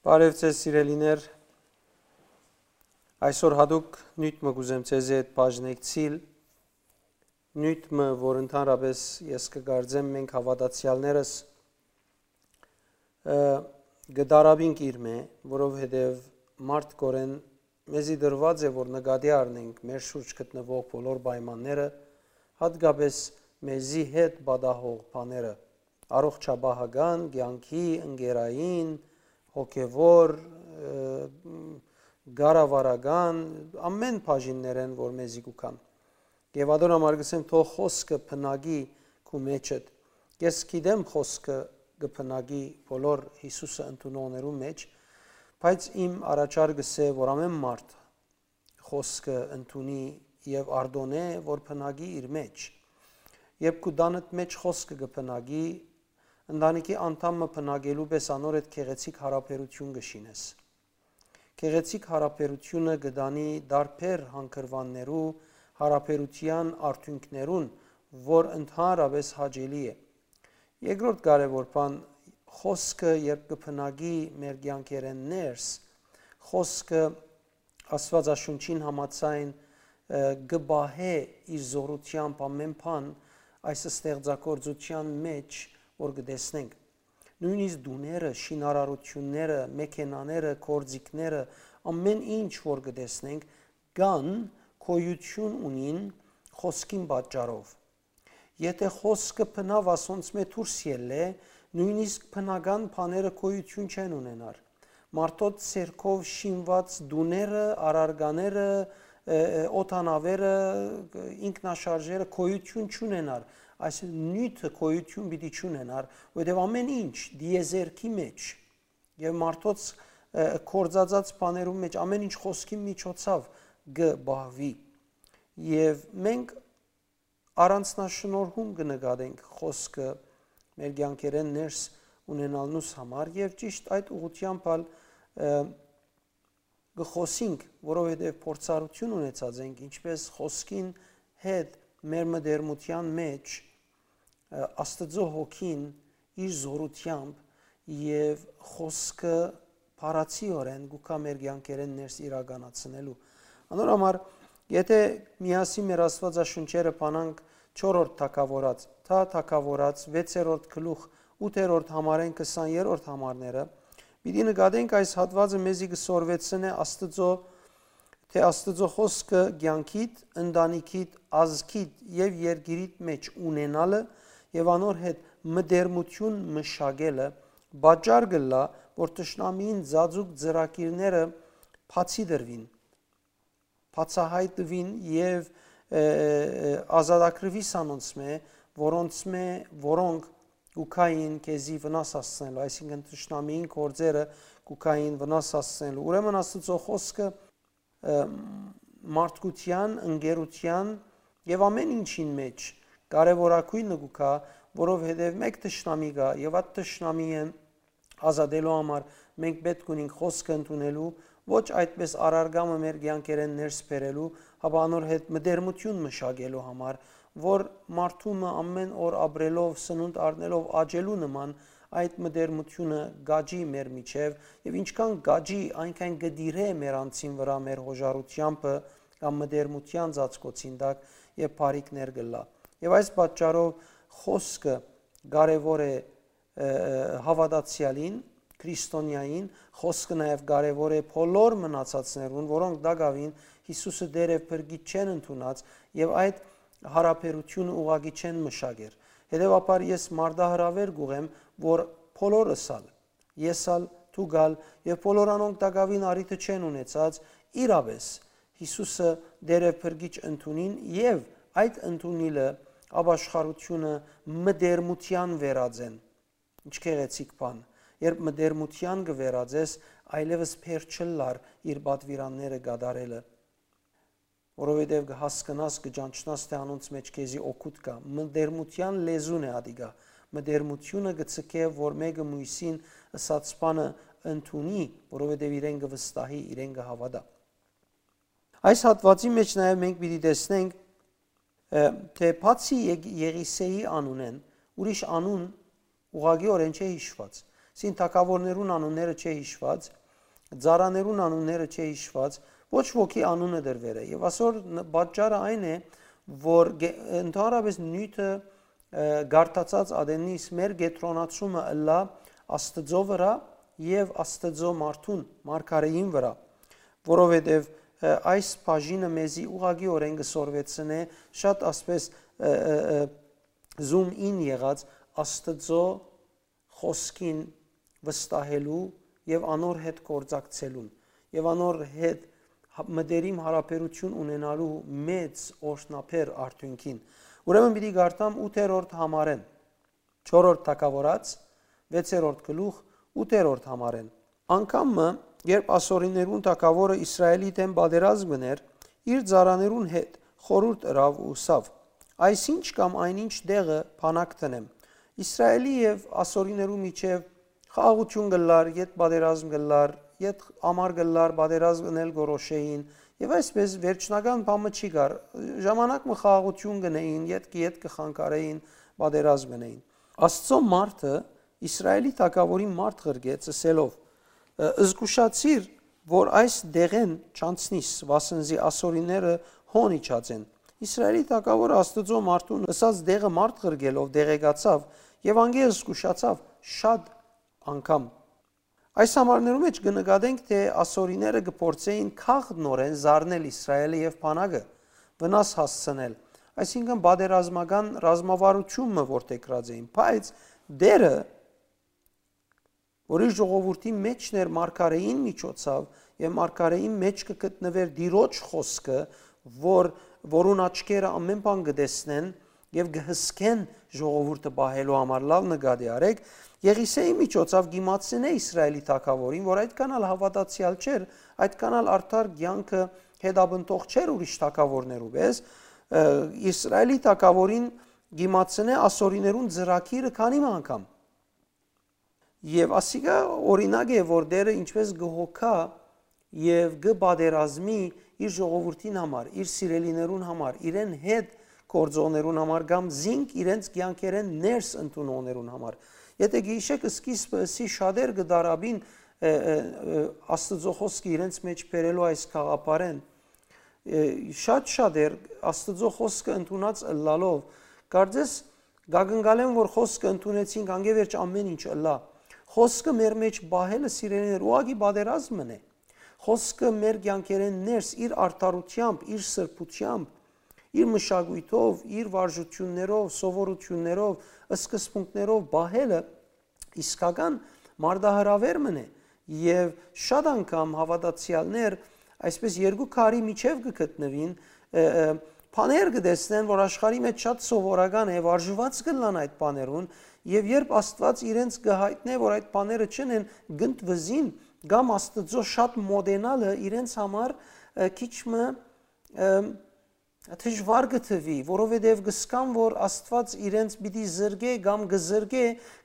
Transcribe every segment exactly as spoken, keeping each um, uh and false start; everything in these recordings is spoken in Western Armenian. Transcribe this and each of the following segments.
Բարև ձեզ, սիրելիներ։ Այսօր յատուկ նիւթ մը կ'ուզեմ ձեզի հետ բաժնեկցիլ, նիւթ մը, որ ընդհանրապես ես կը կարծեմ մենք հաւատացեալներս, ը, կը տարապինք իրմէ, որովհետեւ մարդկօրէն մեզի տրուած է, որ նկատի առնենք մեր շուրջ գտնուող բոլոր պայմանները, յատկապես մեզի հետ պատահող բաները, առողջապահական, կեանքի, ընկերային, հոգեւոր, ը, կառավարական, ամեն բաժիններէն, որ մեզի կու գան։ Եւ ատոր համար կ'ըսեմ, թող խօսքը բնակի քու մէջդ։ Ես գիտեմ խօսքը կը բնակի բոլոր Յիսուսը ընդունողներու մէջ, բայց իմ առաջարկս է, որ ամեն մարդ խօսքը ընդունի եւ արտոնէ, որ բնակի իր մէջ։ Երբ քու տանդ մէջ խօսքը կը բնակի, ընտանիքի անդամ մը բնակելու պէս անոր հետ գեղեցիկ յարաբերութիւն կը շինես։ Գեղեցիկ յարաբերութիւնը կը տանի տարբեր հանգրուաններու, յարաբերութեան արդիւնքներուն, որ ընդհանրապես հաճելի է։ Երկրորդ կարեւոր բան, խօսքը երբ կը բնակի մեր կեանքերէն ներս, խօսքը Աստուածաշունչին համաձայն, ը, կը պահէ իր զօրութեամբ ամեն բան այս ստեղծագործութեան մէջ, որ կը տեսնենք։ Նոյնիսկ տուները, շինարարութիւնները, մեքենաները, գործիքները, ամեն ինչ որ կը տեսնենք, կան, գոյութիւն ունին խօսքին պատճառով։ Եթէ խօսքը բնաւ ասոնցմէ դուրս ելլէ, նոյնիսկ բնական բաները գոյութիւն չեն ունենար։ Մարդոց ձեռքով շինուած տուները, առարկաները, ը, ը, օդանաւերը, ինքնաշարժերը գոյութիւն չունենար, այս նիւթը գոյութիւն պիտի չունենար, որովհետեւ ամեն ինչ տիեզերքի մէջ եւ մարդոց, ը, գործածած բաներու մէջ ամեն ինչ խօսքի միջոցաւ կը պահուի։ Եւ մենք առանձնաշնորհում կը նկատենք խօսքը մեր կեանքերէն ներս ունենալնուս համար եւ ճիշտ այդ ուղղութեամբ ալ, ը, կը խօսինք, որովհետեւ փորձառութիւն ունեցած ենք, ինչպէս խօսքին հետ մեր մտերմութեան մէջ, ը, Աստուծոյ հոգին իր զօրութեամբ եւ խօսքը փառացիորեն գուկա մեր կեանքերէն ներս իրականացնելու։ Անոր համար, եթէ միասին մեր Աստուածաշունչերը բանանք չորրորդ թագաւորաց, թա թագաւորաց, վեցերորդ գլուխ, ութերորդ համարէն քսաներորդ համարները, պիտի նկատենք այս հատվածը մեզի կը սորվեցնէ Աստուծոյ, թէ Աստուծոյ խօսքը կեանքիդ, ընտանիքիդ, ազգիդ եւ երկիրիդ մէջ ունենալը եւ անոր հետ մտերմութիւն մշակելը պատճառ կ'ըլլայ, որ թշնամիին ծածուկ ծրագիրները բացի տրուին, բացահայտուին եւ, ը, ը, ազատագրուի սանոնցմէ, որոնցմէ, որոնք կու գային քեզի վնաս հասցնելու, այսինքն թշնամիին գործերը կու գային վնաս հասցնելու։ Ուրեմն Աստուծոյ խօսքը, ը, մարդկութեան, ընկերութեան եւ ամեն ինչին մէջ կարեւորագոյնը կու գայ, որովհետեւ մէկ թշնամի կայ եւ այդ թշնամիին ազատելու համար մենք պէտք ունենք խօսքը ընդունելու, ոչ այդպէս առարկայ մը մեր կեանքերէն ներս բերելու, հապա անոր հետ մտերմութիւն մշակելու համար, որ մարդու մը ամեն օր ապրելով, սնունդ առնելով աճելու նման այդ մտերմութիւնը կ'աճի մեր միջեւ եւ ինչքան կ'աճի, այնքան կը տիրէ մեր անձին վրայ մեր յոժարութեամբը կամ մտերմութեան ծածկոցին տակ եւ բարիքներ կ'ըլլայ։ Եւ այս պատճառով խօսքը կարեւոր է, ը, հաւատացեալին, քրիստոնեային, խօսքը նաեւ կարեւոր է բոլոր մնացածներուն, որոնք տակաւին Յիսուսը Տէր եւ Փրկիչ չեն ընդունած եւ այդ յարաբերութիւնը ուղղակի չեն մշակեր։ Հետեւաբար ես մարտահրաւեր կ'ուղղեմ, որ բոլորս ալ, ես ալ, դուք ալ եւ բոլոր անոնք տակաւին առիթը չեն ունեցած իրապէս Յիսուսը Տէր եւ Փրկիչ ընդունին եւ այդ ընդունիլը ապաշխարութիւնը մտերմութեան վերածեն։ Ինչ գեղեցիկ բան, երբ մտերմութեան կը վերածես, այլեւս փեր չըլլար իր պատուիրանները կատարելը, որովհետեւ կը հասկնաս, կը ճանչնաս, թէ անոնց մէջ քեզի օգուտ կայ։ Մտերմութեան լեզուն է ատիկա։ Մտերմութիւնը կը ձգէ, որ մէկը մոյսին ըսած բանը ընդունի, որովհետեւ իրեն կը վստահի, իրեն կը հաւատայ։ Այս հատուածի մէջ նաեւ մենք պիտի տեսնենք, ը, թէ բացի Ե-, Եղիսեի անունէն, ուրիշ անուն ուղղակիօրէն չէ յիշուած։ Սին թագաւորներուն անունները չէ յիշուած, ծառաներուն անունները չէ յիշուած, ոչ ոքի անունը դրուեր է։ Եւ ասոր ն-, պատճառը այն է, որ գե-, ընդհանրապես նիւթը, ը, գարթացած ատեննիս մեր կեդրոնացումը ըլլայ Աստծո վրայ եւ Աստծո մարդուն, մարգարեին վրայ, որովհետեւ, ը, այս բաժինը մեզի ուղղակիօրէն կը սորվեցնէ շատ ասպես, ը, ը, ը, zoom in եղած Աստծո խօսքին վստահելու եւ անոր հետ գործակցելուն եւ անոր հետ հա-, մտերիմ յարաբերութիւն ունենալու մեծ օրհնաբեր արդիւնքին։ Ուրեմն պիտի կարդամ ութերորդ համարէն, չորրորդ թագաւորաց, վեցերորդ գլուխ, ութերորդ համարէն։ Անգամ մը, երբ ասորիներուն թագաւորը Իսրայէլի դէմ պատերազմ կ'ընէր, իր ծառաներուն հետ խորհուրդ ըրաւ ու ըսաւ. «Այսինչ կամ այնինչ դեղը բանակ դնեմ։ Իսրայէլի եւ ասորիներու միջեւ խաղաղութիւն կ'ըլլար, յետ պատերազմ կ'ըլլար, յետ ամառ կ'ըլլար, պատերազմ ընել կորոշէին, եւ այսպէս վերջնական բան մը չի գար։ Ժամանակ մը խաղաղութիւն կ'ընէին, յետ կը, յետ կը խանգարէին, պատերազմ կ'ընէին»։ Աստծո մարդը Իսրայէլի թագաւորին մարդ ղրկեց, ըսելով. «Ը, զգուշացիր, որ այս դեղէն չանցնիս, վասն զի ասորիները հոն իջած են»։ Իսրայէլի թագաւորը Աստուծոյ մարդուն ըսած դեղը մարդ ղրկելով տեղեկացաւ եւ անկէ զգուշացաւ շատ անգամ։ Այս համարներու մէջ կը նկատենք, թէ ասորիները կը փորձէին քաղ նորէն զարնել Իսրայէլը եւ բանակը, վնաս հասցնել, այսինքն պատերազմական ռազմավարութիւն մը որդեգրած էին, բայց Տէրը, որ իր ժողովուրդին մէջն էր, մարգարէին միջոցաւ, եւ մարգարէին մէջ կը գտնուէր Տիրոջ խօսքը, որ, որուն աչքերը ամէն բան կը տեսնեն եւ կը հսկեն ժողովուրդը պահելու համար, լաւ նկատի առէք, Եղիսէի միջոցաւ կ'իմացնէ Իսրայէլի թագաւորին, որ այդքան ալ հաւատացեալ չէր, այդքան ալ արդար կեանքը հետապնդող չէր ուրիշ թագաւորներու պէս, ը, Իսրայէլի թագաւորին կ'իմացնէ ասորիներուն ծրագիրը քանի մը անգամ։ Եւ ասիկա օրինակ է, որ Տէրը ինչպէս կը հոգայ եւ կը պատերազմի իր ժողովուրդին համար, իր սիրելիներուն համար, իրեն հետ գործողներուն համար կամ զինք իրենց կեանքերէն ներս ընդունողներուն համար։ Եթէ գիշեք սկիզբը ըսի շատեր կը դարաբին, ը, ը, ը, Աստուծոյ խօսքը իրենց մէջ բերելու այս գաղափարէն, ը, շատ շատեր Աստուծոյ խօսքը ընդունած ըլլալով, կարծես կակնկալեն, որ խօսքը ընդունեցինք, անկէ վերջ ամէն ինչ ըլլայ։ Խօսքը մեր մէջ պահելը, սիրելիներ, ուղղակի պատերազմ մըն է։ Խօսքը մեր կեանքերէն ներս, իր արդարութեամբ, իր սրբութեամբ, իր մշակոյթով, իր վարժութիւններով, սովորութիւններով, սկզբունքներով պահելը իսկական մարտահրաւեր մըն է, եւ շատ անգամ հաւատացեալներ այսպէս երկու քարի միջեւ կը գտնուին, ը, ը, բաներ կը տեսնեն, որ աշխարհի մէջ շատ սովորական է, վարժուած կ'ըլլան այդ բաներուն, եւ երբ Աստուած իրենց կը յայտնէ, որ այդ բաները չեն են, կ'ընդվզին, կամ Աստուծոյ շատ մոտենալը իրենց համար, ը, քիչ մը, ը, դժուար կը թուի, որովհետեւ կ'ըսկան, որ Աստուած իրենց պիտի զրկէ կամ կը զրկէ,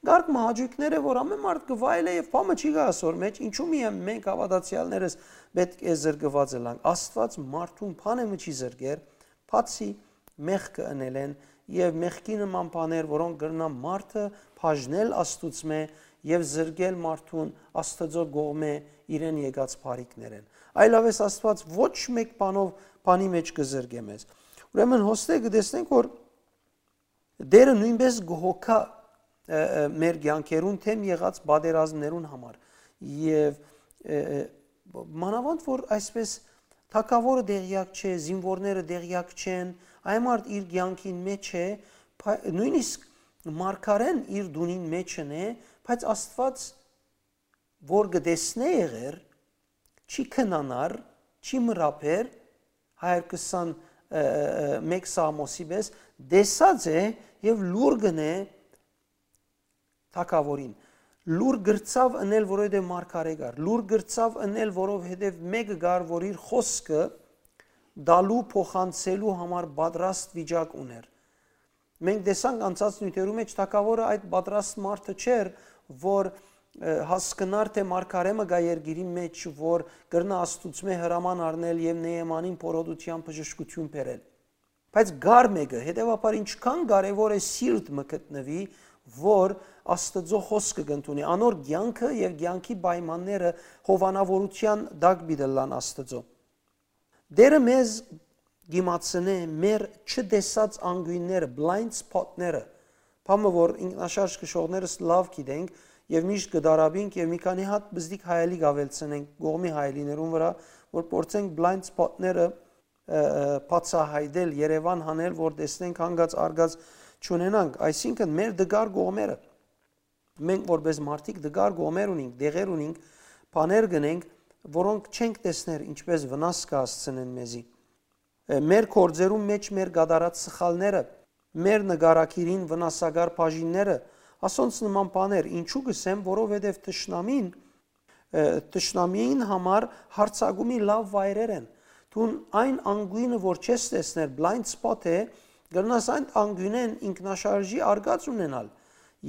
կարգ մը հաճոյքներ է, որ ամէն մարդ կը վայելէ եւ բան մը չի գայ ասոր մէջ, ինչու՞ միայն մենք հաւատացեալներս պէտք է զրկուած ըլանք։ Աստուած մարդուն բան մը չի զրկեր, բացի մեղքը ընելէն եւ մեղքի նման բաներ, որոնք կրնան մարդը բաժնել Աստուծմէ եւ զրկել մարդուն Աստուծոյ կողմէ իրեն եկած բարիքներէն։ Այլապես Աստուած ոչ մէկ բանով, բանի մէջ կը զրկէ մեզ։ Ուրեմն հոստե կը տեսնենք, որ Տէրը նոյնպէս կը հոգայ, ը, ը, մեր կեանքերուն դէմ եղած պատերազմներուն համար։ Եւ, ը, ը, մանաւանդ, որ այսպէս թագաւորը տեղեակ չէ, զինուորները տեղեակ չեն, այն մարդ իր կեանքին մէջ է, փա-, նոյնիսկ մարգարէն իր տունին մէջն է, բայց Աստուած որ կը տեսնէ եղեր, չի քնանար, չի մրապեր, հայ կսան, ը, ը, ը, մէկ Սաղմոսի պէս, տեսած է եւ լուր կ'ընէ թագաւորին։ Լուր կրցաւ ընել, որովհետեւ մարգարէ կար։ Լուր կրցաւ ընել, որովհետեւ մէկը կար, որ իր խօսքը տալու, փոխանցելու համար պատրաստ վիճակ ունէր։ Մենք տեսանք անցած նիւթերու մէջ, թագաւորը այդ պատրաստ մարդը չէր, որ, ը, հասկնար, թէ մարգարէ մը կայ երկիրի մէջ, որ կրնայ Աստուծմէ հրաման առնել եւ Նեեմանին փորոտութեան բժշկութիւն բերել։ Բայց կար մէկը, հետեւաբար ինչքան կարեւոր է սիրտ մը գտնուի, որ Աստուծոյ խօսքը կ'ընդունի։ Անոր կեանքը եւ կեանքի պայմանները հովանաւորութեան տակ պիտի ըլլան Աստուծոյ։ Տէրը մեզ կ'իմացնէ մեր չտեսած անկիւնները, blind spot-ները, բան մը որ ինքնաշարժ քշողներս լաւ գիտենք եւ միշտ կը դարապինք եւ մի քանի հատ պզտիկ հայելի կ'աւելցնենք կողմի հայելիներուն վրայ, որ փորձենք blind spot-ները, ը, ը, բացայայտել, Երեւան հանել, որ տեսնենք հանգած արգած չունենանք, այսինքն մեր դգար կողմերը։ Մենք որպես մարդիկ դգար կողմեր ունինք, դեղեր ունինք, բաներ կ'ընենք, որոնք չենք տեսներ ինչպես վնաս կը հասցնեն մեզի։ Ը, մեր գործերուն մէջ մեր կատարած սխալները, մեր նկարագիրին վնասակար բաժինները, ասոնց նման բաներ, ինչու կ'ըսեմ, որովհետեւ թշնամին, ը, թշնամիին համար հարցակումի լաւ վայրեր են։ Դուն այն անկիւնը, որ չես տեսներ, blind spot է, կրնաս այն անկիւնէն ինքնաշարժի արգած ունենալ։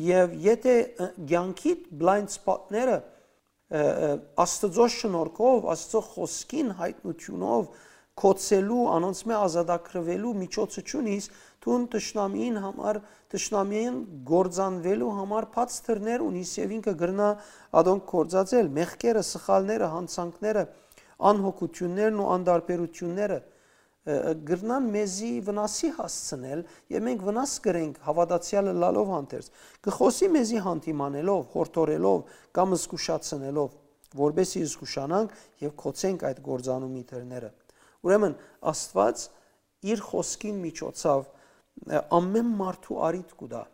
Եւ եթէ, ը, կեանքիդ blind spot-ները, ը, ը, Աստուծոյ շնորհքով, Աստուծոյ խօսքին յայտնութիւնով, կոչելու, անոնցմէ ազատագրուելու միջոցը չունիս, դուն թշնամիին համար, թշնամիին կործանուելու համար բաց դռներ ունիս եւ ինքը կրնայ ատոնք կործածել, մեղքերը, սխալները, յանցանքները, անհոգութիւններն ու անտարբերութիւնները, ը, ը, կրնան մեզի վնասի հասցնել եւ մենք վնաս կրենք հաւատացեալը լալով հանդերձ։ Կը խօսի մեզի հանդիմանելով, յորդորելով կամ զգուշացնելով, որպեսզի զգուշանանք եւ կոչենք այդ կործանումի դռները։ Ուրեմն Աստուած իր խօսքին միջոցաւ, ը, ամէն մարդու առիթ կու տայ,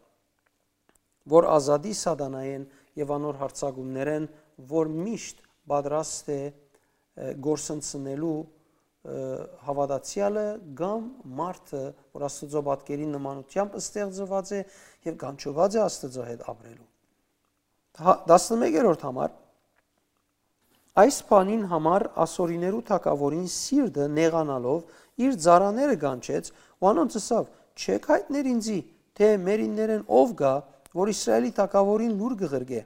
որ ազատի սատանայէն եւ անոր յարձակումներէն, որ միշտ պատրաստ է, ը, կորսնցնելու, ը, հաւատացեալը կամ մարդը, որ Աստուծոյ պատկերին նմանութեամբ ստեղծուած է եւ կանչուած է Աստուծոյ հետ ապրելու։ Հա, տասնմեկերորդ համար, այս բանին համար ասորիներու թագաւորին սիրտը նեղանալով իր ծառաները կանչեց ու անոնց ըսաւ. «Չէ՞ք յայտներ ինծի, թէ մերիններէն ով կայ, որ Իսրայէլի թագաւորին լուր կը ղրկէ»։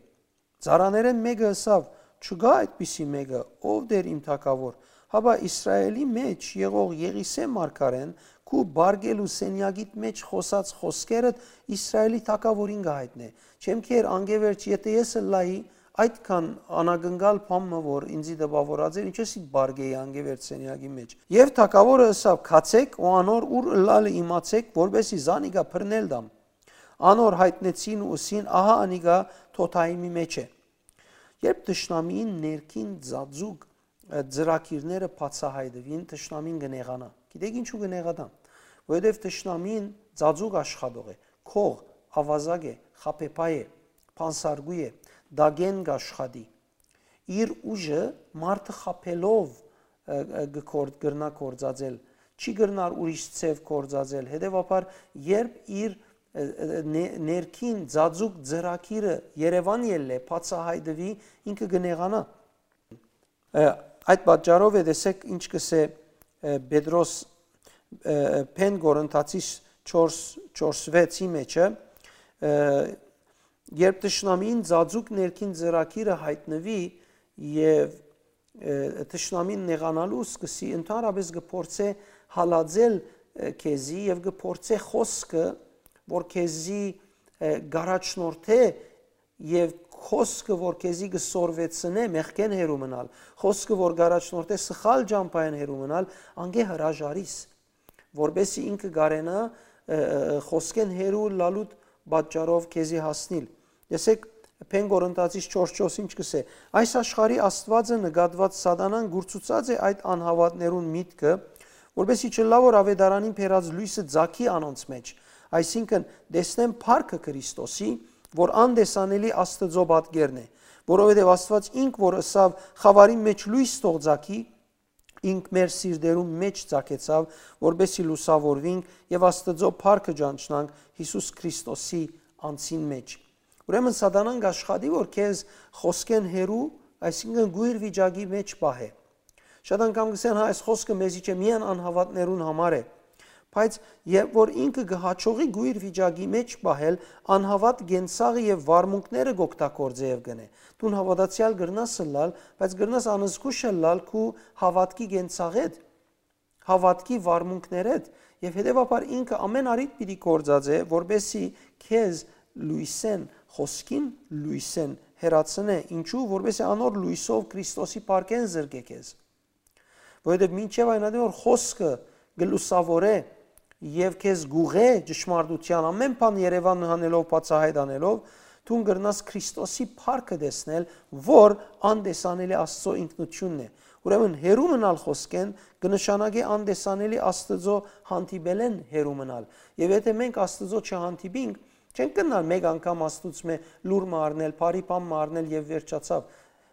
Ծառաներէն մէկը ըսաւ. «Չկայ այդպիսի մէկը, ով Տէր իմ թագաւոր»։ Հապա Իսրայէլի մէջ եղող Եղիսէ մարգարէն քու պարկելու սենեակիդ մէջ խօսած խօսքերդ Իսրայէլի թագաւորին կը յայտնէ։ Չեմ քեր անկէ վերջ, եթէ ես ըլլայի այդքան անակնկալ բան մը, որ ինծի տպաւորած էր, ինչպես ի պարկեի անկէ վերջ սենեակի մէջ։ Եւ թագաւորը ըսաւ. «Գացէք ու անոր ուր ըլլալը իմացէք, որպեսզի զանիկա բռնել տամ»։ Անոր յայտնեցին ու ըսին. «Ահա անիկա Թոթայիմի մէջ է»։ Երբ թշնամիին ներքին ծածուկ, ը, ծրագիրները բացայայտուին, թշնամին կը նեղանայ։ Գիտեք ինչու կը նեղանայ։ Որովհետեւ թշնամին ծածուկ աշխատող է, քող, ավազակ է, խաբեբայ է, բանսարկու է, տակէն կ'աշխատի։ Իր ուժը մարդը խաբելով, ը, ը, կը կոր-, կրնայ կործածել, չի կրնար ուրիշ ձեւ կործածել։ Հետեւաբար, երբ իր, ը, ը, ը, ନେ-, ներքին ծածուկ ծրագիրը երեւան ելլէ, բացայայտուի, ինքը կը նեղանայ։ Ը, այդ պատճառով է, տեսեք, ինչ կ'ըսէ, ը, Պետրոս, ը, Փեն Կորինթացիս չորս, չորս վեցի մէջը, ը, երբ թշնամին ծածուկ ներքին ծրագիրը յայտնուի եւ, ը, թշնամին նեղանալու սկսի, ընդհանրապես կը փորձէ հալածել, ը, քեզի եւ կը փորձէ խօսքը, որ քեզի, ը, կ'առաջնորդէ, եւ խօսքը, որ քեզի կը սորվեցնէ մեղքէն հեռու մնալ, խօսքը, որ կ'առաջնորդէ սխալ ճամբայէն հեռու մնալ, անկէ հրաժարիս, որպեսզի ինքը կարենայ, ը, ը, ը, խօսքէն հեռու լալուտ պատճառով քեզի հասնիլ։ Տեսեք, Փեն Կորինթացիս չորս չորս ինչ կ'ըսէ. «Այս աշխարհի աստուածը նկատուած սատանան կուրցուցած է այդ անհաւատներուն միտքը, որպեսզի չըլլայ որ աւետարանին բերած լոյսը ծագի անոնց մէջ, այսինքն՝ տեսնեն փառքը Քրիստոսի, որ անտեսանելի Աստուծոյ պատկերն է, որովհետեւ Աստուած ինք որ ըսաւ. "Խաւարին մէջ լոյս թող ծագի", ինք մեր սիրտերուն մէջ ծագեցաւ, որպեսզի լուսաւորուինք եւ Աստուծոյ փառքը ճանչնանք Յիսուս Քրիստոսի անձին մէջ"։ Ուրեմն սատանան կ'աշխատի, որ քեզ խօսքէն հեռու, այսինքն՝ գոյր վիճակի մէջ պահէ։ Շատ անգամ կ'ըսեն. «Հա, այս խօսքը մեզի չէ, միայն անհաւատներուն համար է»։ Բայց երբ որ ինքը կը յաջողի գոյր վիճակի մէջ պահել, անհաւատ կենցաղը եւ վարմունքները կ'օգտագործէ եւ կ'ընէ։ Դուն հաւատացեալ կրնաս ըլլալ, բայց կրնաս անզգուշ ըլլալ քու հաւատքի կենցաղէդ, հաւատքի վարմունքներէդ, եւ հետեւաբար ինքը ամէն առիթ պիտի գործածէ, որպեսզի քեզ լոյսէն, խօսքին լոյսէն հեռացնէ։ Ինչու՞, որպեսզի անոր լոյսով Քրիստոսի փառքէն զրկէ քեզ։ Որովհետեւ մինչեւ այն ատեն որ խօսքը կը լուսաւորէ եւ քեզ գուղէ ճշմարտութեան, ամէն բան երեւան հանելով, բացայայտ անելով, դուն կրնաս Քրիստոսի փառքը տեսնել, որ անտեսանելի Աստծո ինքնութիւնն է։ Ուրեմն հեռու մնալ խօսքէն կը նշանակէ անտեսանելի Աստծո հանդիպելէն հեռու մնալ։ Եւ եթէ մենք Աստծո չհանդիպինք, չենք կրնար մէկ անգամ Աստուծմէ լուր մը առնել, բարի բան մը առնել եւ վերջացաւ։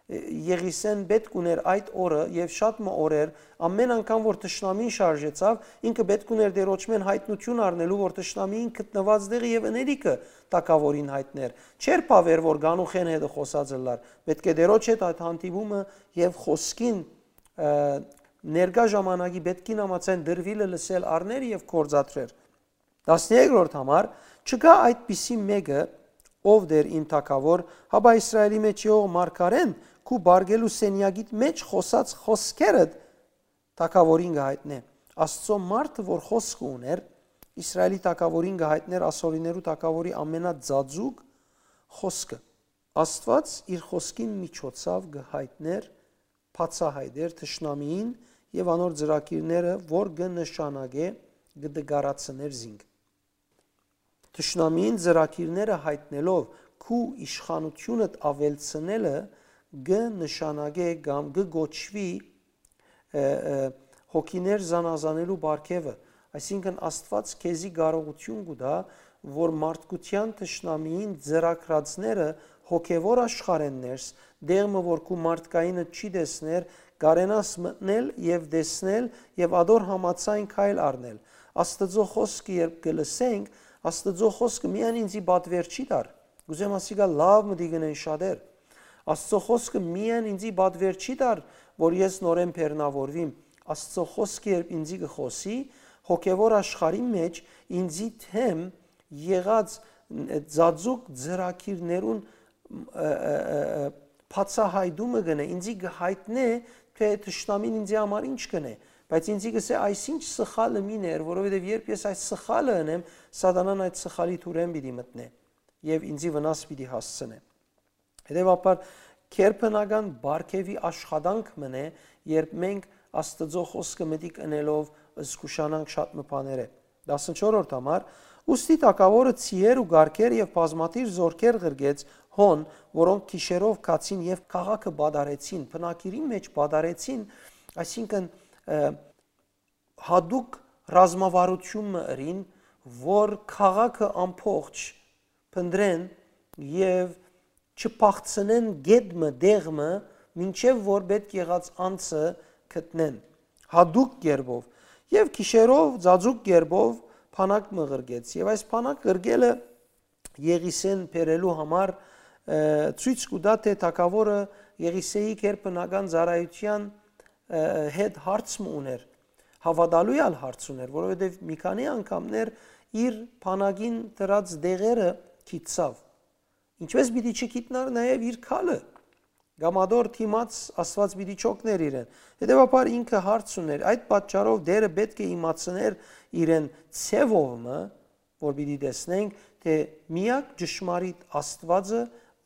Եղիսէն պէտք ունէր այդ օրը եւ շատ մը օրեր, ամէն անգամ որ թշնամին շարժեցաւ, ինքը պէտք ունէր Տէրոջմէն յայտնութիւն առնելու, որ թշնամին գտնուած տեղը եւ ընելիքը թագաւորին յայտներ։ Չէր բաւեր որ գանուխէն հետը խօսած ըլլար, պէտք է Տէրոջ հետ այդ հանդիպումը եւ խօսքին, ը, ներկայ ժամանակի պէտքին համաձայն դրուիլը լսել առներ եւ գործադրեր։ Տասներկրորդ համար, չկայ այդպիսի մէկը, ով դեր իմ թագաւոր, հապա Իսրայելի մեջ եղող մարգարէն քու բարգելու սենեակիդ մեջ խօսած խօսքերդ թագաւորին կը յայտնէ։ Աստծո մարդը որ խօսքը ունէր, Իսրայելի թագաւորին կը յայտնէր ասորիներու թագաւորի ամենաձաձուկ խօսքը։ Աստուած իր խօսքին միջոցաւ կը յայտնէր, բացայայտէր թշնամիին եւ անոր ծրագիրները, որ կը նշանակէ, կը դկարացներ զինք։ Թշնամիին ծրագիրները յայտնելով քու իշխանութիւնդ աւելցնելը կը նշանակէ կամ կը կոչուի, ը, ը, հոգիներ զանազանելու պարգեւը, այսինքն Աստուած քեզի կարողութիւն կու տայ, որ մարդկութեան թշնամիին ծրագրածները հոգեվոր աշխարհէն ներս, դեղ մը որ քու մարդկայինը չի տեսներ, կարենաս մտնել եւ տեսնել եւ ադոր համաձայն քայլ առնել։ Աստուծո խօսքը երբ կը լսենք, Աստուծո խօսքը միայն ինձի պատվեր չի տար։ Կ'ուզեմ ասիկա լաւ մտի գնեն շատեր։ Աստուծո խօսքը միայն ինձի պատվեր չի տար, որ ես նորեն բեռնավորվիմ։ Աստուծո խօսքը երբ ինձի կը խօսի, հոգեվոր աշխարհի մեջ ինձի դէմ եղած, ը, ծածուկ ծրագիրներուն, ը, ը, ը, ը, բացայայտումը կ'ընէ, ինձի կը յայտնէ, թէ թշնամին ինձի համար ինչ կ'ընէ, բայց ինձի կ'ըսէ, այս ինչ սխալը մին էր, որովհետեւ երբ ես այս սխալը ընեմ, սատանան այդ սխալի թուրէն պիտի մտնէ եւ ինձի վնաս պիտի հասցնէ։ Հետեւաբար, գերբնական պարգեւի աշխատանք մըն է, երբ մենք Աստուծոյ խօսքը մտիկ ընելով զգուշանանք շատ մը բաներէ։ Տասնչորրորդ համար, ուստի թագաւորը ձիեր ու կառքեր եւ բազմաթիւ զօրքեր ղրկեց հոն, որոնք գիշերով գացին եւ քաղաքը պատառեցին, բնակիրին մէջ պատառեցին, այսինքն, ը, յատուկ ռազմավարութիւն մը ըրին, որ քաղաքը ամբողջ փնտռեն եւ չփախցնեն գետ մը, դեղ մը, մինչեւ որ պէտք եղած անձը գտնեն, յատուկ կերպով, եւ գիշերով ծածուկ կերպով բանակ մը ղրկեց, եւ այս բանակ ղրկելը Եղիսէն բերելու համար, ը, ցոյց կու տայ, թէ թագաւորը Եղիսէի գերբնական ծառայութեան, ը, հետ հարց մը ունէր, հաւատալու ալ հարց ունէր, որովհետեւ մի քանի անգամներ իր բանակին դրած դեղերը գիտցաւ։ Ինչպէս պիտի չգիտնար նաեւ իր քալը, կամ ադոր դիմաց Աստուած պիտի չօգներ իրեն։ Հետեւաբար ինքը հարց ունէր, այդ պատճառով Տէրը պէտք է իմացներ իրեն ձեւով մը, որ պիտի տեսնենք, թէ միակ ճշմարիտ Աստուածը,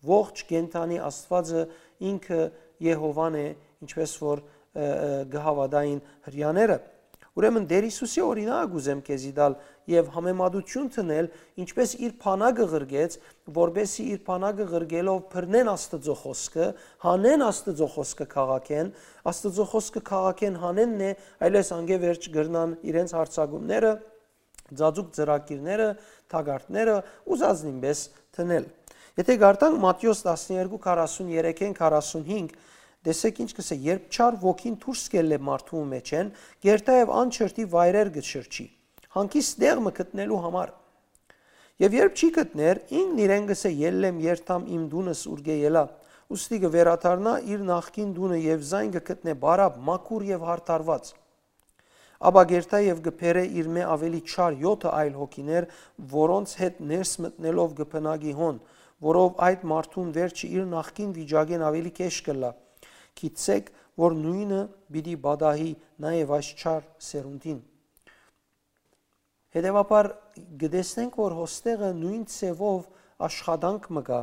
ողջ կենդանի Աստուածը ինքը Եհովան է, ինչպէս որ, ը, ը, կը հաւատային հրեաները։ Ուրեմն Տէր Յիսուսի օրինակ ուզեմ քեզի տալ եւ համեմատութիւն դնել, ինչպէս իր բանակը ղրկեց, որպէսզի իր բանակը ղրկելով բռնեն Աստուծոյ խօսքը, հանեն Աստուծոյ խօսքը քաղաքէն, Աստուծոյ խօսքը քաղաքէն հանենն է, այլեւս անկէ վերջ կրնան իրենց յարձակումները, ծածուկ ծրագիրները, թակարդները ուզածնին պէս դնել։ Եթէ կարդանք Մատթէոս տասներկու, քառասուն երեքէն քառասուն հինգ, տեսէք ինչ կ'ըսէ. «Երբ չար ոգին դուրս կ'ելլէ մարդու մեջէն, կ'երթայ եւ անչրտի վայրեր կը շրջի, հանգիստ տեղ մը գտնելու համար։ Եւ երբ չի գտներ, ինքն իրեն կ'ըսէ. "Ելլեմ, երթամ իմ տունս, ուրկէ ելայ"։ Ուստի կը վերադառնայ իր նախկին տունը եւ զայն կը գտնէ բարապ, մաքուր եւ յարդարուած։ Ապա կ'երթայ եւ կը բերէ իրմէ աւելի չար եօթը այլ հոգիներ, որոնց հետ ներս մտնելով կը բնակի հոն, որով այդ մարդուն վերջը իր նախկին վիճակէն աւելի գէշ կ'ըլլայ։ Գիտցէք, որ նոյնը պիտի պատահի նաեւ այս չար սերունդին"։ Հետեւաբար կը տեսնենք, որ հոստեղը նոյն ձեւով աշխատանք մը կայ,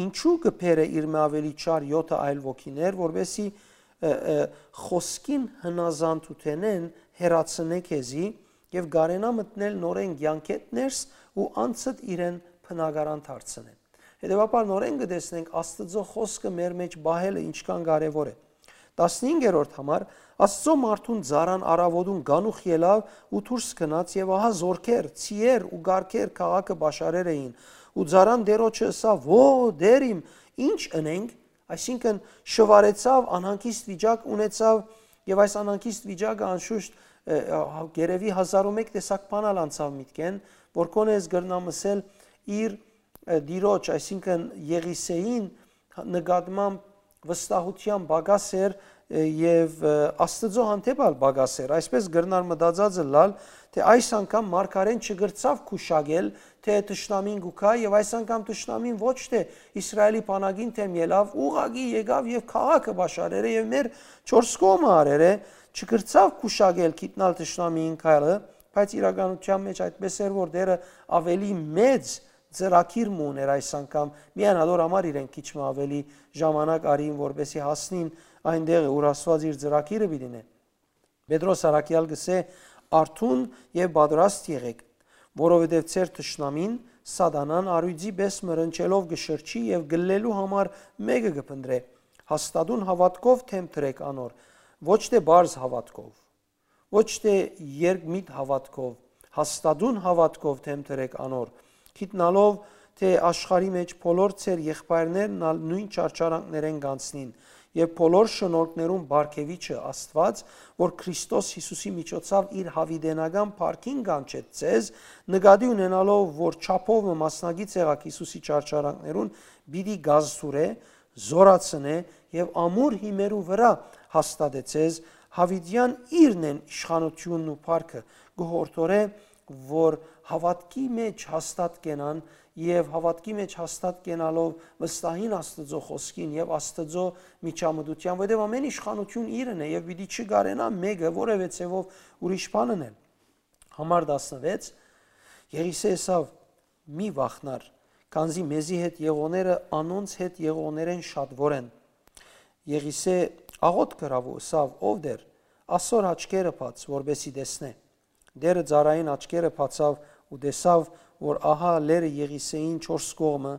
ինչու՞ կը բերէ իրմէ աւելի չար եօթը այլ ոգիներ, որպէսզի, ը, ը, խօսքին հնազանդութենէն հեռացնէ քեզի եւ կարենայ մտնել նորէն կեանքէդ ներս ու անցդ իրեն բնակարան դարձնէ։ Հետեւաբար նորէն կը տեսնենք Աստուծոյ խօսքը մեր մէջ պահելը ինչքան կարեւոր է։ Տասնհինգերորդ համար, Աստուծոյ մարդուն ծառան առաւօտուն կանուխ ելաւ ու դուրս գնաց, եւ ահա զօրքեր, ցիեր ու կառքեր քաղաքը պաշարեր էին, ու ծառան Տէրոջը ըսաւ. «Ո, Տէր իմ, ի՞նչ ընենք»։ Այսինքն՝ շուարեցաւ, անհանգիստ վիճակ ունեցաւ, եւ այս անհանգիստ վիճակը անշուշտ, ը, ը, գերեւի հազար ու մէկ տեսակ բան ալ անցաւ միտքէն, որ կոնե ես կրնամ ըսել իր, ը, Տիրոջ, այսինքն՝ Եղիսեին նկատմամբ վստահութեան պակաս էր, ը, եւ, ը, Աստուծոյ հանդէպ ալ պակաս էր։ Այսպէս կրնար մտածած ըլլալ, թէ այս անգամ մարգարէն չկրցաւ գուշակել, թէ թշնամին կու գայ, եւ այս անգամ թշնամին ոչ թէ Իսրայէլի բանակին դէմ ելաւ, ուղղակի եկաւ եւ քաղաքը պաշարեր է եւ մեր չորս կողմը արեր է, չկրցաւ գուշակել գիտնալ թշնամիին քայլը, բայց իրականութեան մէջ այդպէս էր, որ Տէրը աւելի մեծ ծրագիր մը ունէր այս անգամ, միայն ատոր համար իրեն քիչ մը աւելի ժամանակ արին, որպէսզի հասնին այն տեղը, ուր Աստուած իր ծրագիրը պիտի նե։ Պետրոս առաքեալ կ'ըսէ. «Արթուն եւ պատրաստ եղէք, որովհետեւ ձեր թշնամին, Սատանան, առիւծի պէս մը ռնչելով կը շրջի եւ գլլելու համար մէկը կը փնտռէ։ Հաստատուն հաւատքով դէմ դրէք անոր, ոչ թէ պարզ հաւատքով, ոչ թէ երկմիտ հաւատքով, հաստատուն հաւատքով դէմ դրէք անոր, գիտնալով թէ աշխարհի մէջ բոլոր ձեր եղբայրներն ալ նոյն չարչարանքներէն կ'անցնին, եւ բոլոր շնորհքներուն Պարգեւիչը Աստուած, որ Քրիստոս Յիսուսի միջոցաւ իր յաւիտենական փառքին կանչեց ձեզ, նկատի ունենալով, որ չափով մը մասնակից եղաք Յիսուսի չարչարանքներուն, պիտի կազդուրէ, զօրացնէ եւ ամուր հիմերու վրայ հաստատեցես, յաւիտեան իրն են իշխանութիւնն ու փառքը, կը յորդորէ, որ հաւատքի մէջ հաստատ կենան եւ հաւատքի մէջ հաստատ կենալով վստահին Աստուծոյ խօսքին եւ Աստուծոյ միջամտութեան, որովհետեւ ամէն իշխանութիւն իրն է եւ պիտի չկարենայ մէկը որեւէ ձեւով ուրիշ բան ընել»։ Համար տասնվեց, Եղիսէ ըսաւ. «Մի վախնար, քանզի մեզի հետ եղողները անոնց հետ եղողներէն շատուոր են»։ Եղիսէ աղօթք ըրաւ ու ըսաւ. «Ով Տէր, ասոր աչքերը բաց, որպէսզի տեսնէ»։ Տէրը ծառային աչքերը բացաւ ու տեսաւ, որ ահա լերը Եղիսէին չորս կողմը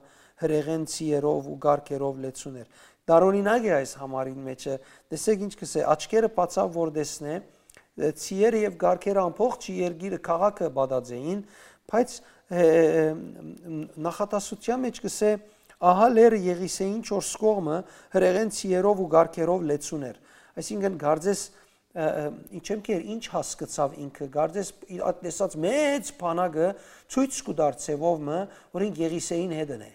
հրեղէն ցիերով ու կառքերով լեցուն էր։ Տարօրինակ է այս համարին մէջը։ Տեսէք ինչ կ'ըսէ, աչքերը բացաւ, որ տեսնէ, ը, ցիերը եւ կառքերը ամբողջ երկիրը, քաղաքը պատած էին, բայց, ը, ը, ը, նախատասության մէջ կ'ըսէ, ահա լերը Եղիսէին չորս կողմը հրեղէն ցիերով ու կառքերով լեցուն էր։ Այսինքն, կարծես, ը, ը, ինչ եմ կեր, ինչ հասկցաւ ինքը, կարծես իր այդ տեսած մեծ բանակը ցոյց կու տար ձևով մը, որ ինք Եղիսէին հետն է։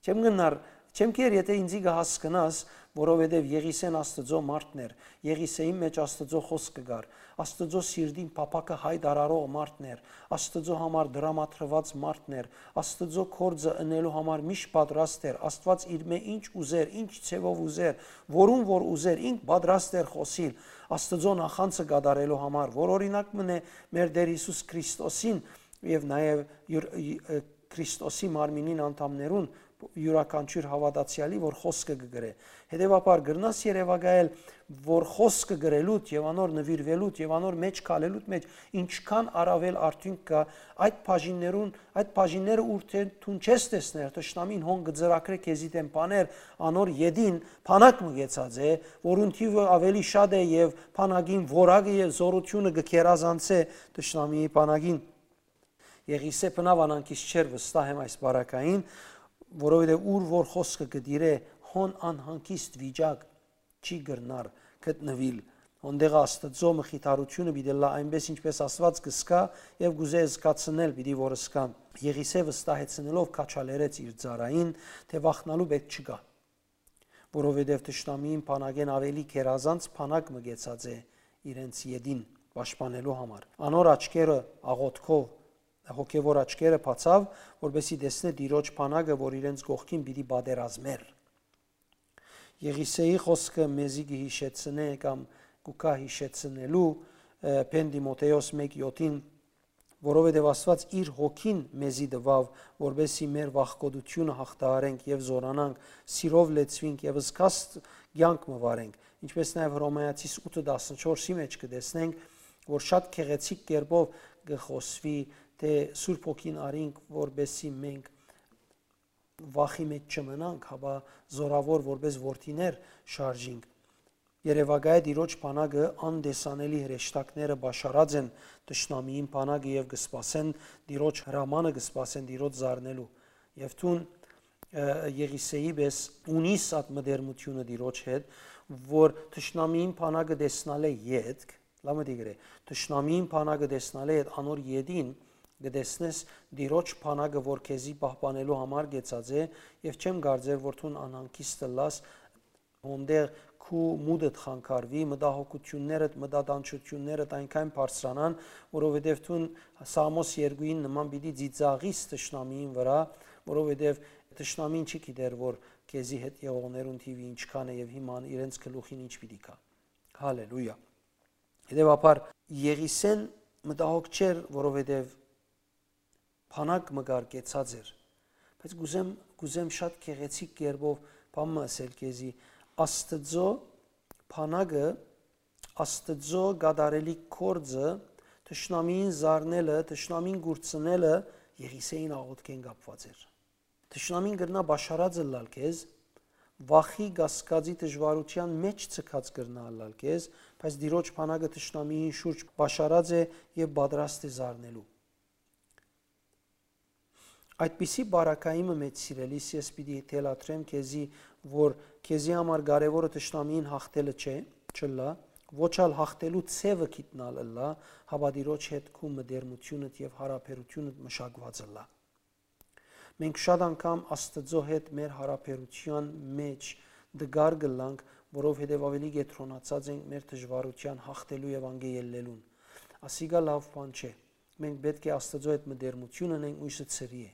Չեմ գնար, չեմ կեր, եթե ինձի կը հասկնաս, որովհետեւ Եղիսէն Աստուծոյ մարդն էր, Եղիսէին մէջ Աստուծոյ խօսքը կար, Աստուծոյ սիրտին փափաքը հայտարարող մարդն էր, Աստուծոյ համար դրամատրուած մարդն էր, Աստուծոյ գործը ընելու համար միշտ պատրաստ էր, Աստուած իրմէ ինչ ուզեր, ինչ ձևով ուզեր, որուն որ ուզեր, ինք պատրաստ էր խօսիլ, Աստուծոյ նախանձը կատարելու համար, որ օրինակ մնէ մեր Տէր Յիսուս Քրիստոսին եւ նաեւ յուր-, ը, Քրիստոսի մարմինին անդամներուն յուրաքանչիւր հաւատացեալի, որ խօսքը կը գրէ։ Հետեւաբար, կրնաս երեւակայել, որ խօսքը գրելուդ եւ անոր նուիրուելուդ եւ անոր մէջ քալելուդ մէջ ինչքան առաւել արդիւնք կայ, այդ բաժիններուն, այդ բաժինները, ուր թէ դուն չես տեսներ, թշնամին հոն կը ծրագրէ քեզի դէմ բաներ, անոր ետին բանակ մը կեցած է, որուն թիւը աւելի շատ է եւ բանակին որակը եւ զօրութիւնը կը գերազանցէ թշնամիի բանակին։ Եղիսէ բնաւ անհանգիստ չէր, վստահ եմ, այս բարակային, որովհետեւ ուր որ խօսքը կը տիրէ, հոն անհանգիստ վիճակ չի կրնար գտնուիլ։ Հոն տեղը Աստուծոյ մխիթարութիւնը պիտի ըլլայ այնպէս, ինչպէս Աստուած կը զգայ եւ կ'ուզէ զգացնել պիտի որ զգան։ Եղիսէ վստահեցնելով քաչալերեց իր ծառային, թէ վախնալու պէտք չկայ, որովհետեւ թշնամիին բանակէն աւելի գերազանց բանակ մը կեցած է իրենց ետին պաշտպանելու համար։ Անոր աչքերը աղոթքով, հոգեվոր աչքերը բացաւ, որպեսզի տեսնէ Տիրոջ բանակը, որ իրենց կողքին պիտի պատերազմէր։ Եղիսէի խօսքը մեզի կը յիշեցնէ կամ կու գայ յիշեցնելու, ը, Փեն Տիմոթէոս մէկ յոթին, որովհետեւ Աստուած իր հոգին մեզի տուաւ, որպէս զի մեր վախկոտութիւնը յաղթահարենք եւ զօրանանք, սիրով լեցուինք եւ զգաստ կեանք մը վարենք, ինչպէս նաեւ Հռոմայացիս ութը տասնչորսի մէջ կը տեսնենք, որ շատ գեղեցիկ կերպով կը խօսուի, թէ Սուրբ Հոգին առինք, որպէս զի մենք վախի մէջ չմնանք, հապա զօրաւոր որպէս որդիներ շարժինք։ Երեւակայ Տիրոջ բանակը անտեսանելի հրեշտակները պաշարած են թշնամիին բանակը եւ կը սպասեն Տիրոջ հրամանը, կը սպասեն Տիրոջ զարնելու։ Եւ դուն, ը, Եղիսեի պէս ունիս այդ մտերմութիւնը Տիրոջ հետ, որ թշնամիին բանակը տեսնալէ ետք, լամը դիգրե, թշնամիին բանակը տեսնալէ յետ անոր ետին կը տեսնես Տիրոջ բանակը, որ քեզի պահպանելու համար կեցած է, եւ չեմ կարծեր, որ դուն անհանգիստ ըլլաս, հոնդեղ քու մուտդ խանգարուի, մտահոգութիւններդ, մտատանջութիւններդ այնքան բարձրանան, որովհետեւ դուն Սաղմոս երկուին նման պիտի ծիծաղիս թշնամիին վրայ, որովհետեւ թշնամին չի գիտեր, որ քեզի հետ եղողներուն թիւը ինչքան է եւ հիմա իրենց գլուխին ինչ պիտի գայ։ Հալելույա։ Հետեւաբար Եղիսեն մտահոգ չէր, որովհետեւ բանակ մը կար կեցած էր։ Բայց կուզեմ, կուզեմ շատ գեղեցիկ կերպով բան մը ասել քեզի։ Աստծո բանակը, Աստծո կատարելիք գործը, թշնամիին զարնելը, թշնամին կուրցնելը Եղիսեին աղոթքէն կապված էր։ Թշնամին կրնայ պաշարած ըլլալ քեզ, վախի, կասկածի, դժուարութեան մէջ ձգած կրնայ ըլլալ քեզ, բայց Տիրոջ բանակը թշնամիին շուրջ պաշարած է եւ պատրաստ է զարնելու։ Այդպիսի բարակայի մը մէջ, սիրելիս, ես պիտի թելադրեմ քեզի, որ քեզի համար կարեւորը թշնամիին յաղթելը չէ, չըլլայ, ոչ ալ յաղթելու ձեւը գիտնալ ըլլայ, հապա Տիրոջ հետ քու մտերմութիւնդ եւ յարաբերութիւնդ մշակուած ըլլայ։ Մենք շատ անգամ Աստծո հետ մեր յարաբերութեան մէջ տկար կ'ըլլանք, որովհետեւ աւելի կեդրոնացած ենք մեր դժուարութեան յաղթելու եւ անկէ ելլելուն։ Ասիկա լաւ բան չէ։ Մենք պէտք է Աստծո հետ մտերմութիւն ընենք, մոյսը ցրի է։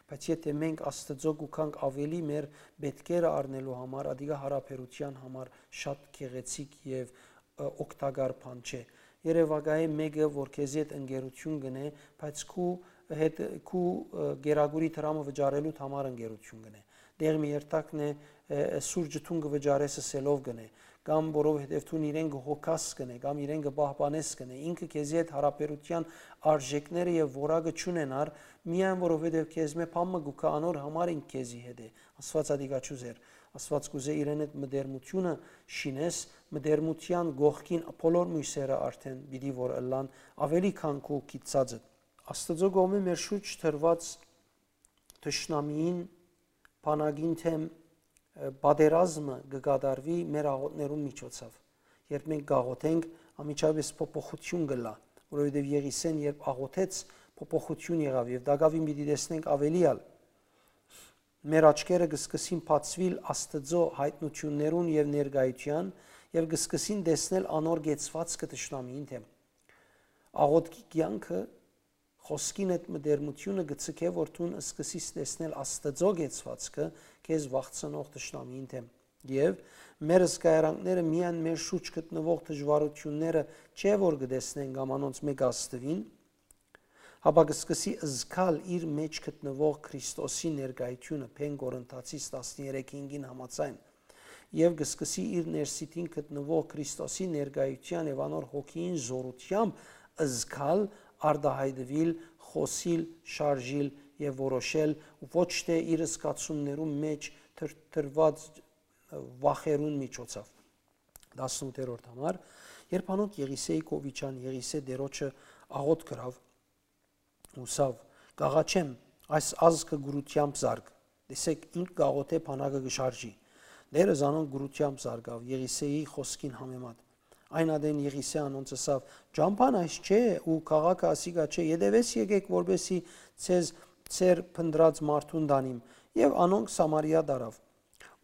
Բայց եթէ մենք Աստծո կուքանք աւելի մեր պէտքերը առնելու համար, ադիկա յարաբերութեան համար շատ գեղեցիկ եւ, ը, օգտակար բան չէ։ Երեւակայ մէկը, որ քեզի հետ ընկերութիւն կ'ընէ, բայց քու հետ, քու, ը, գերագուրի դրամը վճարելու համար ընկերութիւն կ'ընէ։ Դեղ մի երթակն է, ը, ը, սուրճը դուն կը վճարես ըսելով կ'ընէ, կամ որովհետեւ դուն իրեն կը հոգաս կ'ընէ, կամ իրեն կը պահպանես կ'ընէ, ինքը քեզի հետ յարաբերութեան արժեքները եւ որակը չունենար, միայն որովհետեւ քեզմէ բան մը կուքայ, անոր համար ինք քեզի հետ է։ Աստուած ադիկա չուզեր։ Աստուած կուզէ իրեն հետ մտերմութիւնը շինես, մտերմութեան կողքին բոլոր մոյսերը արդէն պիտի որ ըլլան աւելի քան քու գիտցածը։ Աստուծոյ կողմէ մեր շուրջ դրուած թշնամիին, բանակին դէմ, ը, պատերազմը կը կատարուի մեր աղոթներուն միջոցով։ Երբ մենք կաղոթենք, անմիջապէս փոփոխութիւն կ'ըլլայ, որովհետեւ Եղիսեն երբ աղոթեց, փոփոխութիւն եղաւ եւ տակաւին պիտի տեսնենք աւելի ալ։ Մեր աչքերը կը սկսին բացուիլ Աստծո յայտնութիւններուն եւ ներկայութեան եւ կը սկսին տեսնել անոր կեցուածքը թշնամիին դէմ։ Աղոթքի կեանքը, խօսքին հետ մտերմութիւնը կը ձգէ, որ դուն սկսես տեսնել Աստծո կեցուածքը քեզ վախցնող թշնամիին դէմ։ Եւ մեր զգայարանքները միայն մեր շուրջ գտնուող դժուարութիւնները չէ, որ կը տեսնեն կամ անոնցմէ կ'ազդուին, հապա կը սկսի զգալ իր մէջ գտնուող Քրիստոսի ներկայութիւնը, Փեն Կորնթացիս տասներեքը հինգին համաձայն, եւ կը սկսի իր ներսիտին գտնուող Քրիստոսի ներկայութեան եւ անոր հոգիին զօրութեամբ զգալ, արտայայտուիլ, խօսիլ, շարժիլ եւ որոշել, ոչ թէ իր զգացումներուն մէջ թրթռուած վախերուն միջոցով։ Տասնութերորդ համար, երբ անոնք Եղիսեի կով իջան, Եղիսէ Տիրոջը աղօթք ըրաւ, ուսաւ. «Կ'աղաչեմ, այս ազգը կուրութեամբ զարգ»։ Տեսէք, ինք կ'աղօթէ, բանակը կը շարժի։ Տերը զանոնք կուրութեամբ զարգաւ, Եղիսեի խօսքին համեմատ։ Այն ատեն Եղիսէ անոնց ըսաւ. «Ճամբան այս չէ ու քաղաքը ասիկա չէ, ետեւէս եկէք, որպեսզի ձեզ ձեր փնտռած մարդուն տանիմ»։ Եւ անոնք Սամարիա տարաւ։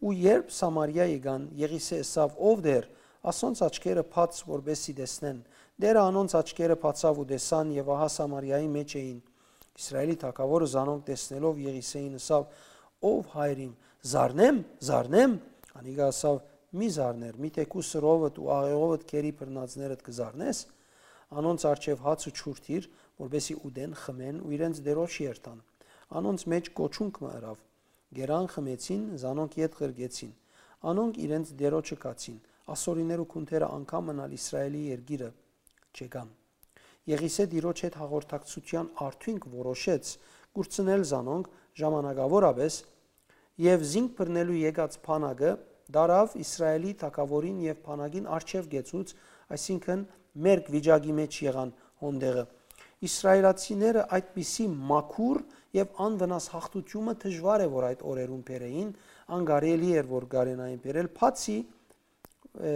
Ու երբ Սամարիա եկան, Եղիսէ ըսաւ. «Ով Տէր, ասոնց աչքերը բաց, որպեսզի տեսնեն»։ Տերը անոնց աչքերը բացաւ ու տեսան, եւ ահա Սամարիայի մէջ էին։ Իսրայէլի թագաւորը զանոնք տեսնելով Եղիսէին ըսաւ. «Ով Հայր իմ, զարնեմ, զարնեմ»։ Անիկա ըսաւ. «Մի զարներ, միթէ քու սրովդ ու աղեղովդ գերի բռնածներդ կը զարնես»։ անոնց առջեւ հաց ու ջուր դիր, որպէսզի ուտեն, խմեն ու իրենց Տիրոջ երթան։ Անոնց մէջ կոչունք մը ըրաւ։ Կերան, խմեցին, զանոնք ետ ղրկեցին։ Անոնք իրենց Տիրոջը գացին, ասորիներու քունթերը անգամ մըն ալ Իսրայէլի երկիրը չեկան։ Եղիսէ Տիրոջ հետ հաղորդակցութեան արդիւնք որոշեց կուրցնել զանոնք ժամանակաւորապէս, եւ զինք բռնելու եկած բանակը տարաւ Իսրայէլի թագաւորին եւ բանակին առջեւ կեցուց, այսինքն՝ մերկ վիճակի մէջ եղան հոն տեղը։ Իսրայէլացիները այդպիսի մաքուր եւ անվնաս յաղթութիւնը դժուար է որ այդ օրերուն բերէին, անկարելի էր որ կարենային բերել, բացի, ը,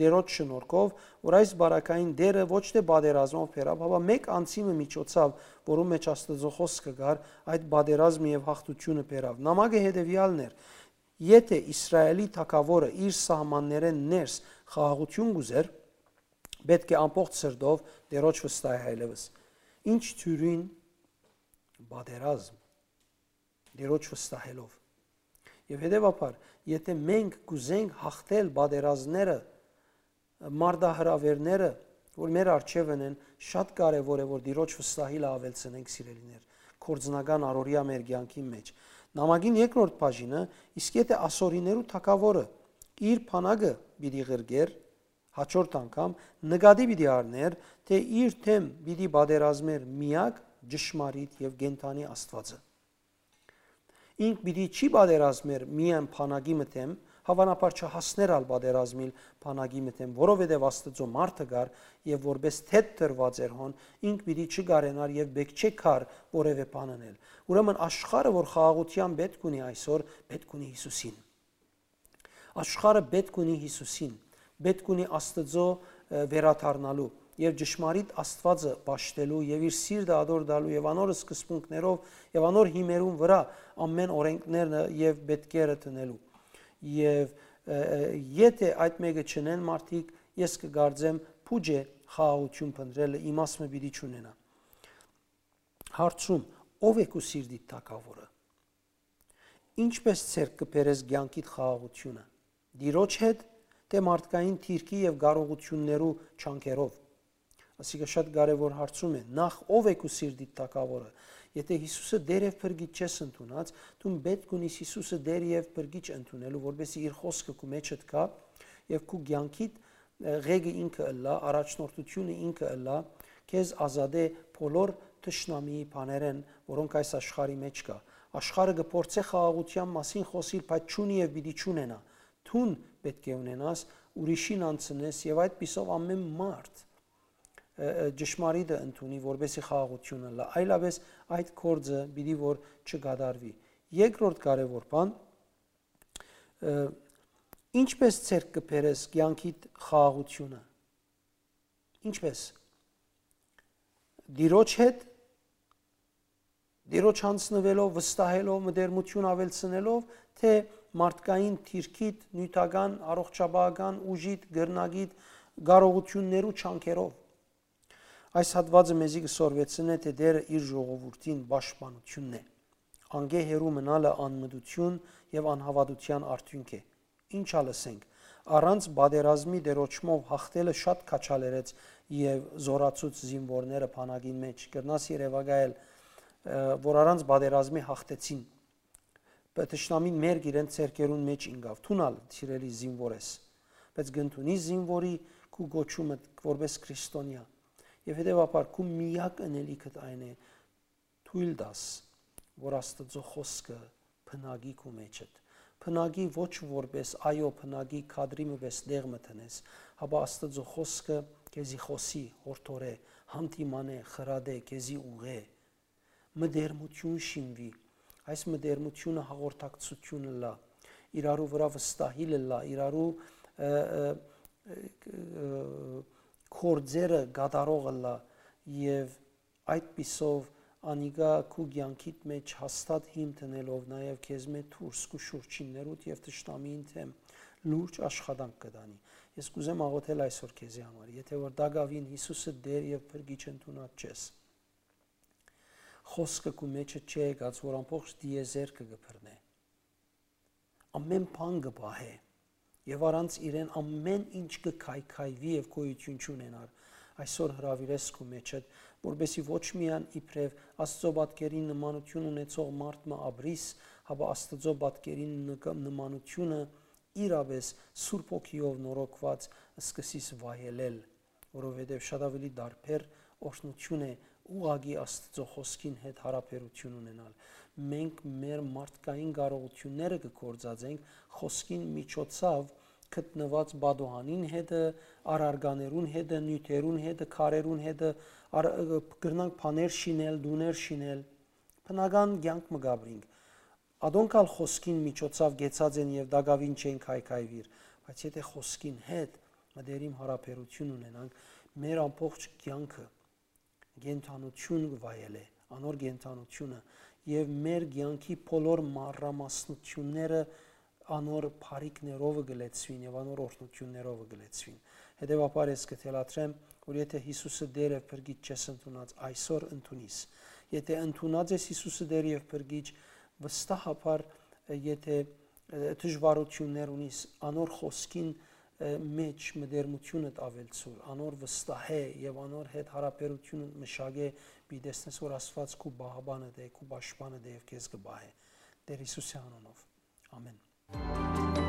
Տիրոջ շնորհքով, որ այս բարակային դերը ոչ թէ պատերազմով բերաւ, հապա մէկ անձի մը միջոցաւ, որու մէջ Աստուծոյ խօսքը կար, այդ պատերազմը եւ յաղթութիւնը բերաւ։ Նամակը հետեւեալն էր. եթէ Իսրայէլի թագաւորը իր սահմաններէն ներս խաղաղութիւն կ'ուզէր, պէտք է ամբողջ սրտով Տիրոջ վստահ այլեւս։ Ինչ թիւրին պատերազմ, Տիրոջ վստահելով։ Եւ հետեւաբար, եթէ մենք կ'ուզենք յաղթել պատերազմները, մարտահրաւէրները, որ մեր առջեւ ընեն, շատ կարեւոր է որ Տիրոջ վստահիլը աւելցնենք, սիրելիներ, կորձնական առօրեայ մեր կեանքին մէջ։ Նամակին երկրորդ բաժինը, իսկ եթէ ասորիներու թագաւորը իր բանակը պիտի ղրկէր, հաջորդ անգամ նկատի պիտի առնէր, թէ իր դէմ պիտի պատերազմէր միակ ճշմարիտ եւ կենդանի Աստուածը։ Ինք պիտի չի պատերազմեր միայն բանակի մը դէմ, հաւանաբար չհասներ ալ պատերազմիլ բանակի մը դէմ, որովհետեւ Աստուծոյ մարդը կար եւ որպէս թեթ դրուած էր հոն, ինք պիտի չկարենար եւ պէտք չէ կար որեւէ բան ընել։ Ուրեմն աշխարհը, որ խաղաղութեան պէտք ունի այսօր, պէտք ունի Յիսուսին։ Աշխարհը պէտք ունի Յիսուսին, պէտք ունի Աստուծոյ, ը, վերադառնալու եւ ճշմարիտ Աստուածը պաշտելու եւ իր սիրտը ատոր տալու եւ անոր սկզբունքներով եւ անոր հիմերուն վրայ ամէն օրէնքները եւ պէտքերը դնելու։ Եւ, ը, ը, եթէ այդ մէկը չընեն մարդիկ, ես կը կարծեմ, փուճ է խաղաղութիւն փնտռելը, իմաստ մը պիտի չունենայ։ Հարցում. ո՞վ է քու սիրտիդ թագաւորը։ Ինչպէս ձեռք կը բերես կեանքիդ խաղաղութիւնը։ Տիրոջ հետ, թէ մարդկային դիրքի եւ կարողութիւններու ջանքերով։ Ասիկա շատ կարեւոր հարցում է։ Նախ, ո՞վ է քու սիրտիդ թագաւորը։ Եթէ Յիսուսը Տէր եւ Փրկիչ չես ընդունած, դուն պէտք ունիս Յիսուսը Տէր եւ Փրկիչ ընդունելու, որպեսզի իր խօսքը քու մեջդ գայ եւ քու կեանքիդ, ը, ղեկը ինքը ըլլայ, առաջնորդությունը ինքը ըլլայ, քեզ ազատէ բոլոր թշնամիի բաներէն, որոնք այս աշխարհի մէջ կայ։ Աշխարհը կը փորձէ խաղաղութեան մասին խօսիլ, բայց չունի եւ պիտի չունենայ։ Դուն պէտք է ունենաս, ուրիշին անցնես եւ այդպիսով ամէն մարդ, ը, ը, ճշմարիտը ընդունի, որպեսզի խաղաղութիւն ըլլայ։ Այլապէս այդ գործը պիտի որ չկատարուի։ Երկրորդ կարեւոր բան, ը, ինչպէս ձեռք կը բերես կեանքիդ խաղաղութիւնը։ Ինչպէս։ Տիրոջ հետ, Տիրոջ յանձնուելով, վստահելով, մտերմութիւն աւելցնելով, թէ մարդկային դիրքիդ, նիւթական, առողջապահական ուժիդ, կրնակիդ, կարողութիւններու ջանքերով։ Այս հատուածը մեզի կը սորվեցնէ, թէ Տէրը իր ժողովուրդին պաշտպանութիւնն է։ Անկէ հեռու մնալը անմտութիւն եւ անհաւատութեան արդիւնք է։ Ինչ ալ ըսենք, առանց պատերազմի Տիրոջմով յաղթելը շատ քաջալերեց եւ զօրացուց զինուորները բանակին մէջ։ Կրնաս երեւակայել, ը, որ առանց պատերազմի յաղթեցին։ Բայց թշնամին մերկ իրենց ձեռքերուն մէջ ինկաւ։ Դուն ալ, սիրելի զինուոր ես, բայց կ'ընդունի զինուորի քու կոչումը որպէս քրիստոնեայ։ Եւ հետեւաբար քու միակ ընելիքդ այն է, թոյլ տաս, որ Աստուծոյ խօսքը բնակի քու մեջդ։ Բնակի ոչ որպէս այո, բնակի քադրի մը պէս տեղ մը դնես, հապա Աստուծոյ խօսքը քեզի խօսի, յորդորէ, հանդիմանէ, խրատէ, քեզի ուղղէ։ Մտերմութիւն շինուի։ Այս մտերմութիւնը հաղորդակցութիւն ըլլայ, իրարու վրայ վստահիլ ըլլայ, իրարու, ը, ը, ը, ը, գործերը կատարող ըլլայ եւ այդպիսով անիկա քու կեանքիդ մէջ հաստատ հիմ դնելով նաեւ քեզմէ դուրս քու շուրջիններուդ եւ թշնամիին դէմ լուրջ աշխատանք կը տանի։ Ես կ'ուզեմ աղոթել այսօր քեզի համար, եթէ որ տակաւին Յիսուսը Տէր եւ Փրկիչ ընդունած չես, խօսքը քու մեջը չի եկած, որ ամբողջ տիեզերքը կը բռնէ։ Ամէն բան կը պահէ եւ առանց իրեն ամէն ինչ կը քայքայուի եւ գոյութիւն չունենար։ այսօր հրաւիրես քու մէջդ, որպեսզի ոչ միայն իբրեւ Աստուծոյ պատկերին նմանութիւն ունեցող մարդ մը ապրիս, հապա Աստուծոյ պատկերին նկա-, նմանութիւնը իրապէս Սուրբ Հոգիով նորոգուած սկսիս վայելել, որովհետեւ շատ աւելի տարբեր օրհնութիւն է ուղղակի Աստուծոյ խօսքին հետ յարաբերութիւն ունենալ։ Մենք մեր մարդկային կարողութիւնները կը գործածենք խօսքին միջոցաւ գտնուած պատուհանին հետը, առարկաներուն հետը, նիւթերուն հետը, քարերուն հետը, առ-, կրնանք բաներ շինել, տուներ շինել, բնական կեանք մը կ'ապրինք։ Ատոնք ալ խօսքին միջոցաւ կեցած են եւ տակաւին չեն քայքայուիր, բայց եթէ խօսքին հետ մտերիմ յարաբերութիւն ունենանք, մեր ամբողջ կեանքը կենդանութիւն կը վայելէ, անոր կենդանութիւնը, եւ մեր կեանքի բոլոր մանրամասնութիւնները անոր բարիքներով կը լեցուին եւ անոր օրհնութիւններով կը լեցուին։ Հետեւաբար ես կը թելադրեմ, որ եթէ Յիսուսը Տէր եւ Փրկիչ չես ընդունած, այսօր ընդունիս։ Եթէ ընդունած ես Յիսուսը Տէր եւ Փրկիչ, վստահաբար, եթէ, ը, դժվարութիւններ ունիս, անոր խօսքին, ը, մէջ մտերմութիւնդ աւելցուր, անոր վստահէ եւ անոր հետ յարաբերութիւնդ մշակէ, պիտի տեսնես, որ Աստուած քու պահապանդ է, քու պաշտպանդ է եւ քեզ կը պահէ։ Տէր Յիսուսի անունով։ Ամէն։